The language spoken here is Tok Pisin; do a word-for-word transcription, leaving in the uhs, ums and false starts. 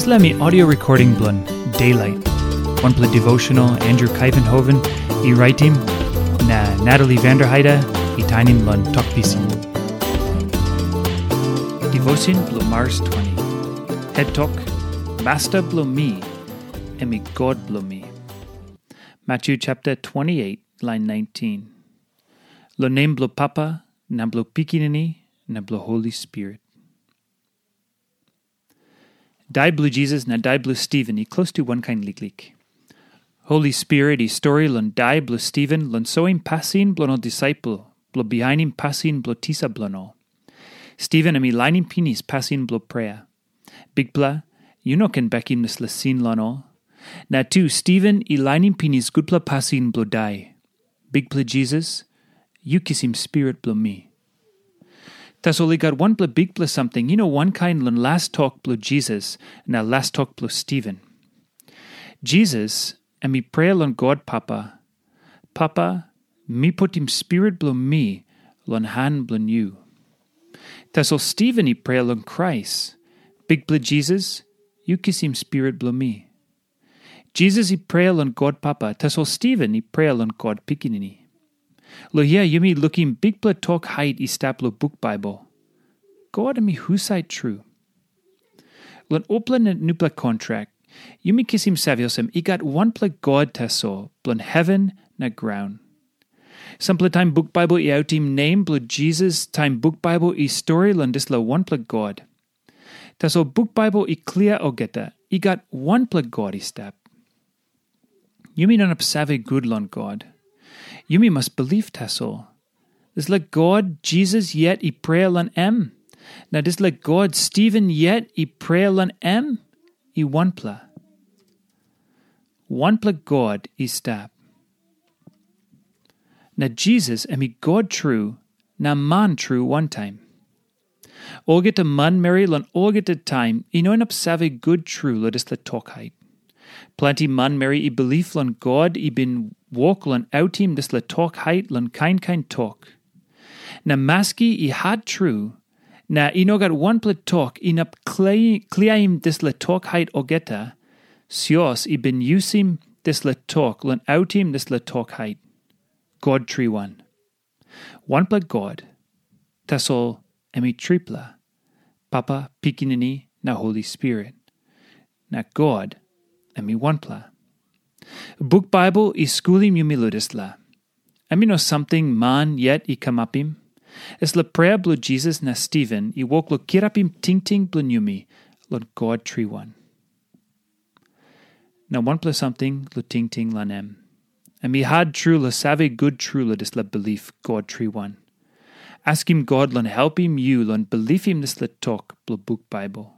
Dispela mi audio recording bilong Daylight, wanpela devotional Andrew Kaivenhoven i raitim, na Natalie Vanderheide i tainim long Tok Pisin. Devotion bilong Mars twenty. Het tok, Masta bilong mi, em i God bilong mi. Matthew chapter twenty-eight, line nineteen. Lo nem bilong Papa, na bilong Pikinini, na bilong Holi Spirit. Dai bilong Jisas na dai bilong Stiven i klostu wankain liklik. Holi Spirit i stori long dai bilong Stiven long soim pasin bilong ol disaipel bilong bihainim pasin bilong tisa bilong ol. Stiven em i lainim pinis pasin bilong prea. Bikpela, yu no ken bekim dispela sin long ol. Na tu Stiven i lainim pinis gutpela pasin bilong dai. Bikpela Jisas, yu kisim spirit bilong mi. Tasol i gat wanpela bikpela samting, yu no wankain long las tok bilong Jisas na las tok bilong Stiven. Jisas em i prea long God Papa, Papa, mi putim spirit bilong mi long han bilong yu. Tasol Stiven i prea long Krais, Bikpela Jisas, yu kisim spirit bilong mi. Jisas i prea long God Papa, tasol Stiven i prea long God Pikinini. Lo hia yumi lukim bikpela tok hait i stap long buk Baibel. God em i husat tru? Long upela na nupela kontrak, yumi kisim save olsem i gat wanpela God tasol bilong heven na graun. Sampela taim buk Baibel i autim nem bilong Jisas, taim buk Baibel i stori long dispela wanpela God. Tasol buk Baibel i klia olgeta, i gat wanpela God i stap. Yumi no inap save gut long God. Yumi mas bilip tasol. Dispela God Jisas yet i prea long em, na dispela God Stiven yet i prea long em, i wanpela. Wanpela God i stap. Na Jisas em i God tru, na man tru wantaim. Olgeta manmeri long olgeta taim i no inap save gut tru long dispela tok hait. Planti manmeri i bilip long God i bin wok long autim dispela tok hait long kain kain tok. Na maski i hat tru, na i no gat wanpela tok inap kli-, kliaim dispela tok hait olgeta, sios i bin yusim dispela tok long autim dispela tok hait. God triwan. Wanpela God, tasol em i tripela, Papa, Pikinini, na Holi Spirit. Na God, em i wanpela. Buk Baibel i skulim yumi long dispela. Em i no samting man yet i kamapim. Dispela prea bilong Jisas na Stiven i wok long kirapim tingting bilong yumi long God triwan. Na wanpela samting long tingting long em. Em i hat tru long save gut tru long dispela bilip God triwan. Askim God long helpim yu long bilipim dispela tok bilong buk Baibel.